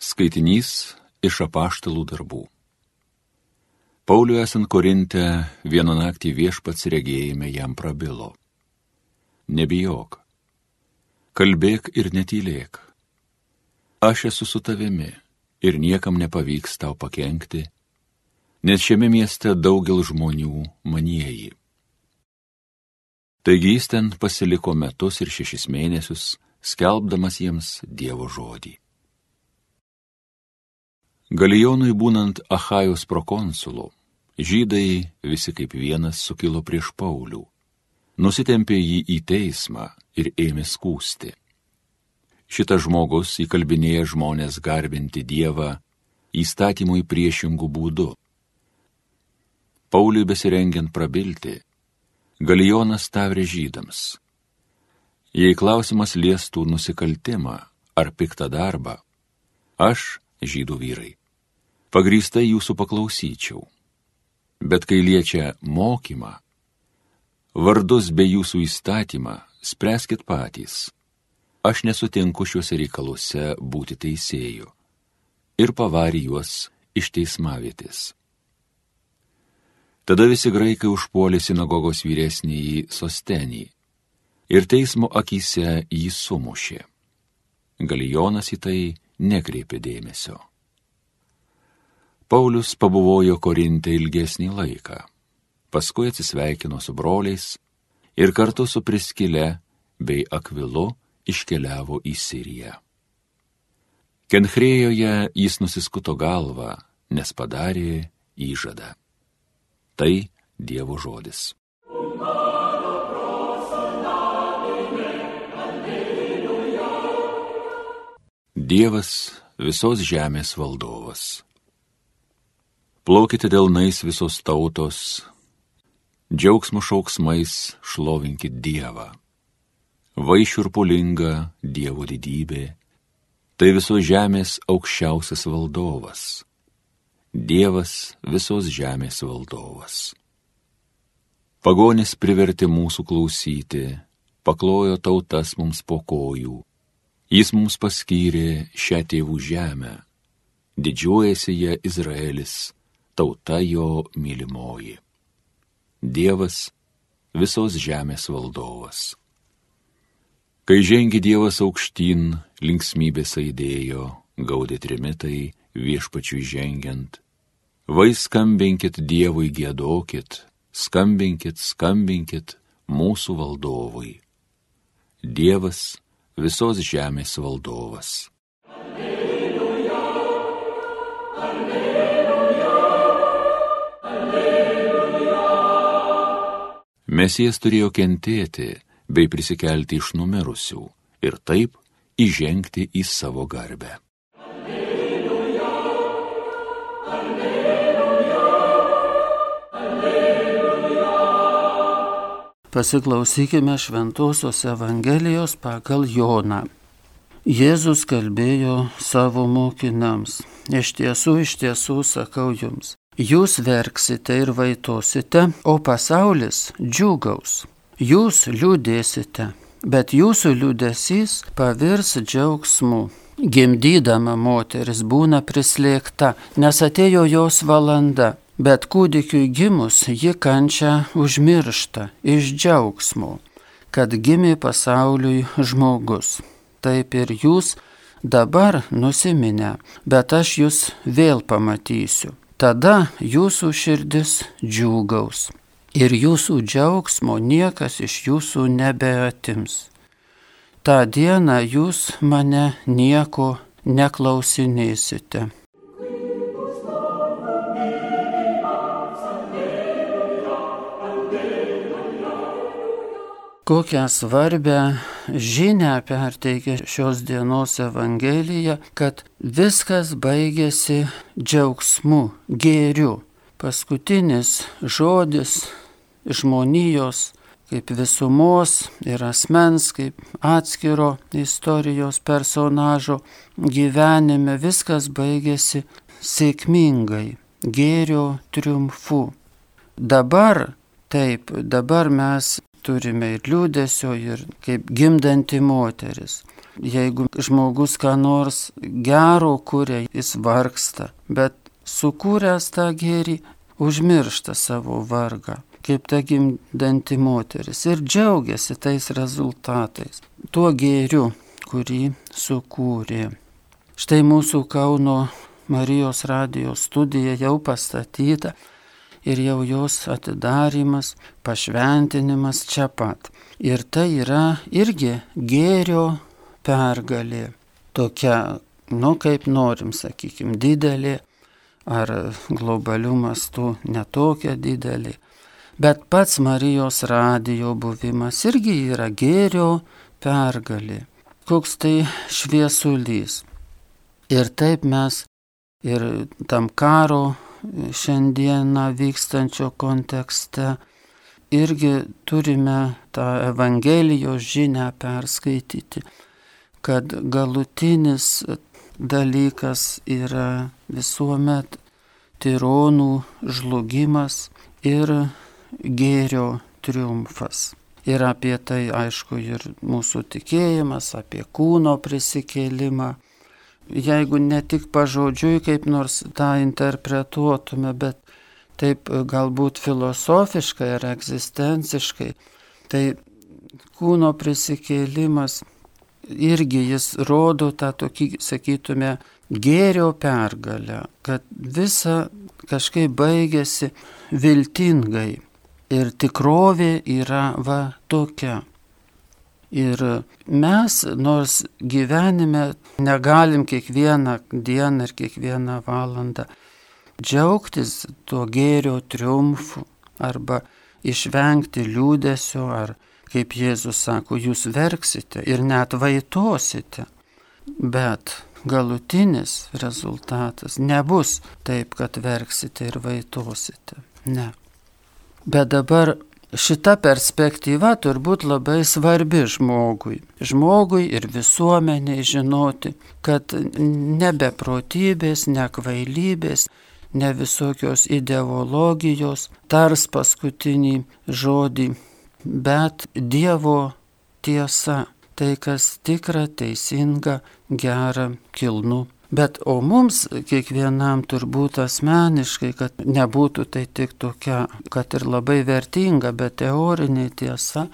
Skaitinys iš apaštalų darbų. Pauliui esant Korinte, vieną naktį viešpats regėjime jam prabilo. Nebijok, kalbėk ir netylėk. Aš esu su tavimi ir niekam nepavyks tau pakenkti, nes šiame mieste daugel žmonių manieji. Taigi jis ten pasiliko metus ir 6 mėnesius, skelbdamas jiems Dievo žodį. Galijonui būnant Achajos prokonsulu, žydai visi kaip vienas sukilo prieš Paulių, nusitempė jį į teismą ir ėmė skųsti. Šitas žmogus įkalbinėja žmonės garbinti Dievą įstatymui priešingų būdų. Pauliui besirengiant prabilti, Galijonas tavrė žydams: jei klausimas liestų nusikaltimą ar piktą darbą, aš, žydų vyrai, pagrįstai jūsų paklausyčiau. Bet kai liečia mokymą, vardus bei jūsų įstatymą, spręskit patys. Aš nesutinku šiuose reikaluose būti teisėju. Ir pavarė juos iš teismavietės. Tada visi graikai užpuolė sinagogos vyresnįjį Sostenį ir teismo akyse jį sumušė. Galijonas į tai nekreipė dėmesio. Paulius pabuvojo Korinte ilgesnį laiką, paskui atsisveikino su broliais ir kartu su Priskile bei Akvilu iškeliavo į Siriją. Kenchrėjoje jis nusiskuto galvą, nes padarė įžadą. Tai Dievo žodis. Dievas visos žemės valdovas. Plaukite delnais visos tautos, džiaugsmo šauksmais šlovinkit Dievą. Vaišiurpulinga Dievo didybė, tai visos žemės aukščiausias valdovas. Dievas visos žemės valdovas. Pagonis privertė mūsų klausyti, paklojo tautas mums po kojų. Jis mums paskyrė šią tėvų žemę, didžiuojasi ją Izraelis, tauta jo mylimoji. Dievas visos žemės valdovas. Kai žengė Dievas aukštyn, linksmybės aidėjo, gaudė trimitai viešpačiui žengiant. Vai skambinkit Dievui, giedokit, skambinkit, skambinkit mūsų valdovui. Dievas visos žemės valdovas. Alleluja, alleluja, alleluja. Mesijas turėjo kentėti bei prisikelti iš numirusių ir taip įžengti į savo garbę. Alleluja, alleluja, alleluja. Pasiklausykime Šventosios Evangelijos pagal Joną. Jėzus kalbėjo savo mokiniams: iš tiesų sakau jums, jūs verksite ir vaitosite, o pasaulis džiūgaus. Jūs liūdėsite, bet jūsų liūdesys pavirs džiaugsmu. Gimdydama moteris būna prislėgta, nes atėjo jos valanda. Bet kūdikiui gimus ji kančią užmiršta iš džiaugsmo, kad gimė pasauliui žmogus. Taip ir jūs dabar nusiminę, bet aš jūs vėl pamatysiu. Tada jūsų širdis džiūgaus ir jūsų džiaugsmo niekas iš jūsų nebeatims. Ta dieną jūs mane nieko neklausinėsite. Kokią svarbią žinią perteikia šios dienos Evangelija, kad viskas baigėsi džiaugsmu, gėriu. Paskutinis žodis žmonijos kaip visumos ir asmens, kaip atskiro istorijos personažo gyvenime, viskas baigėsi sėkmingai, gėrio triumfu. Dabar mes turime ir liūdesio, ir kaip gimdanti moteris. Jeigu žmogus ką nors gero kuria, jis vargsta, bet sukūręs tą gėrį, užmiršta savo vargą, kaip ta gimdanti moteris, ir džiaugiasi tais rezultatais, tuo gėriu, kurį sukūrė. Štai mūsų Kauno Marijos radijo studija jau pastatyta ir jau jos atidarimas, pašventinimas čia pat. Ir tai yra irgi gėrio pergalė. Tokia, kaip norim, sakykime, didelė ar globalių mastų netokia didelė. Bet pats Marijos radijo buvimas irgi yra gėrio pergalė. Koks tai šviesulys. Ir taip mes ir tam karo šiandieną vykstančio kontekste irgi turime tą Evangelijos žinią perskaityti, kad galutinis dalykas yra visuomet tironų žlugimas ir gėrio triumfas. Ir apie tai, aišku, ir mūsų tikėjimas, apie kūno prisikėlimą. Jeigu ne tik pažodžiui kaip nors tą interpretuotume, bet taip galbūt filosofiškai ar egzistenciškai, tai kūno prisikėlimas irgi jis rodo tą tokį, sakytume, gėrio pergalę, kad visa kažkaip baigėsi viltingai ir tikrovė yra tokia. Ir mes, nors gyvenime negalim kiekvieną dieną ir kiekvieną valandą džiaugtis tuo gėrio triumfu arba išvengti liūdesio, ar, kaip Jėzus sako, jūs verksite ir net vaitosite. Bet galutinis rezultatas nebus taip, kad verksite ir vaitosite. Ne. Bet dabar šita perspektyva turbūt labai svarbi žmogui. Žmogui ir visuomeniai žinoti, kad ne beprotybės, ne kvailybės, ne visokios ideologijos tars paskutinį žodį, bet Dievo tiesa, tai kas tikra, teisinga, gera, kilnu. Bet o mums kiekvienam turbūt asmeniškai, kad nebūtų tai tik tokia, kad ir labai vertinga, bet teorinė tiesa,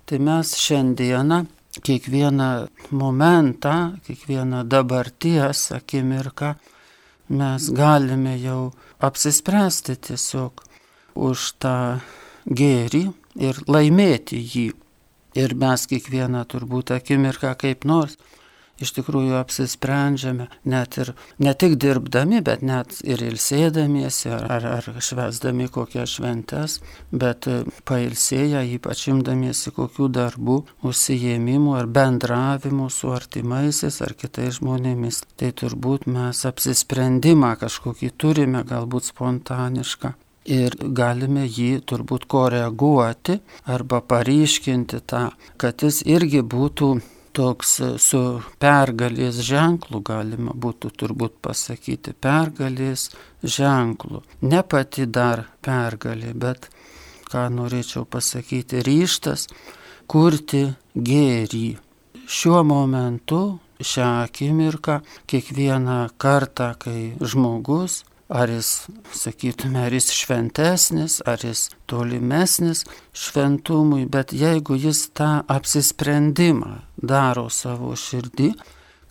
tai mes šiandieną kiekvieną momentą, kiekvieną dabarties akimirką mes galime jau apsispręsti tiesiog už tą gėrį ir laimėti jį. Ir mes kiekvieną turbūt akimirką kaip nors iš tikrųjų apsisprendžiame, ne tik dirbdami, bet net ir ilsėdamiesi ar švęsdami kokias šventes, bet pailsėję, ypač imdamiesi kokių darbų, užsiėmimų ar bendravimų su artimaisiais ar kitais žmonėmis. Tai turbūt mes apsisprendimą kažkokį turime, galbūt spontanišką. Ir galime jį turbūt koreguoti arba paryškinti tą, kad jis irgi būtų toks su pergalės ženklu, galima būtų turbūt pasakyti, pergalės ženklu. Ne pati dar pergalė, bet, ką norėčiau pasakyti, ryžtas kurti gėrį. Šiuo momentu, šią akimirką, kiekvieną kartą, kai žmogus, ar jis, sakytume, ar jis šventesnis, ar jis tolimesnis šventumui, bet jeigu jis tą apsisprendimą daro savo širdį,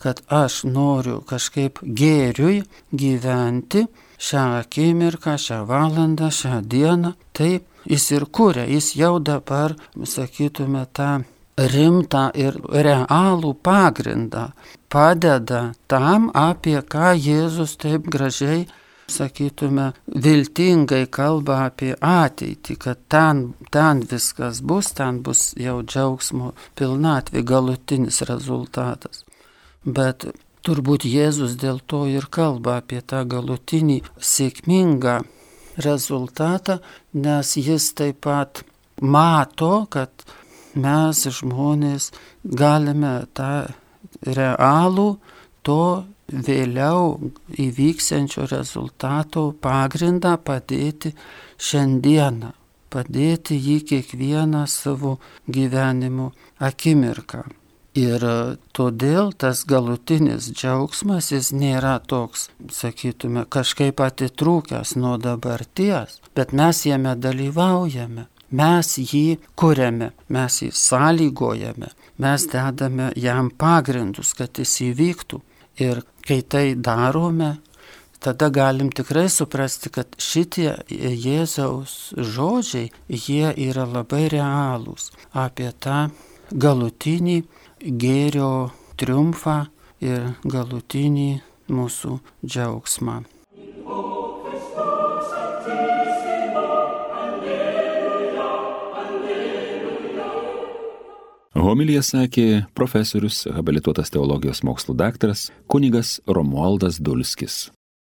kad aš noriu kažkaip gėriui gyventi šią akimirką, šią valandą, šią dieną, tai jis ir kuria, jis jau dabar, sakytume, tą rimtą ir realų pagrindą padeda tam, apie ką Jėzus taip gražiai, sakytume, viltingai kalba apie ateitį, kad ten viskas bus, ten bus jau džiaugsmo pilnatvė, galutinis rezultatas. Bet turbūt Jėzus dėl to ir kalba apie tą galutinį sėkmingą rezultatą, nes jis taip pat mato, kad mes žmonės galime tą realų to vėliau įvyksiančio rezultato pagrindą padėti šiandieną, padėti jį kiekvieną savo gyvenimo akimirką. Ir todėl tas galutinis džiaugsmas, jis nėra toks, sakytume, kažkaip atitrūkęs nuo dabarties, bet mes jame dalyvaujame, mes jį kuriame, mes jį sąlygojame, mes dedame jam pagrindus, kad jis įvyktų. Ir kai tai darome, tada galim tikrai suprasti, kad šitie Jėzaus žodžiai, jie yra labai realūs apie tą galutinį gėrio triumfą ir galutinį mūsų džiaugsmą. Homiliją sakė profesorius, habilituotas teologijos mokslų daktaras kunigas Romualdas Dulskis.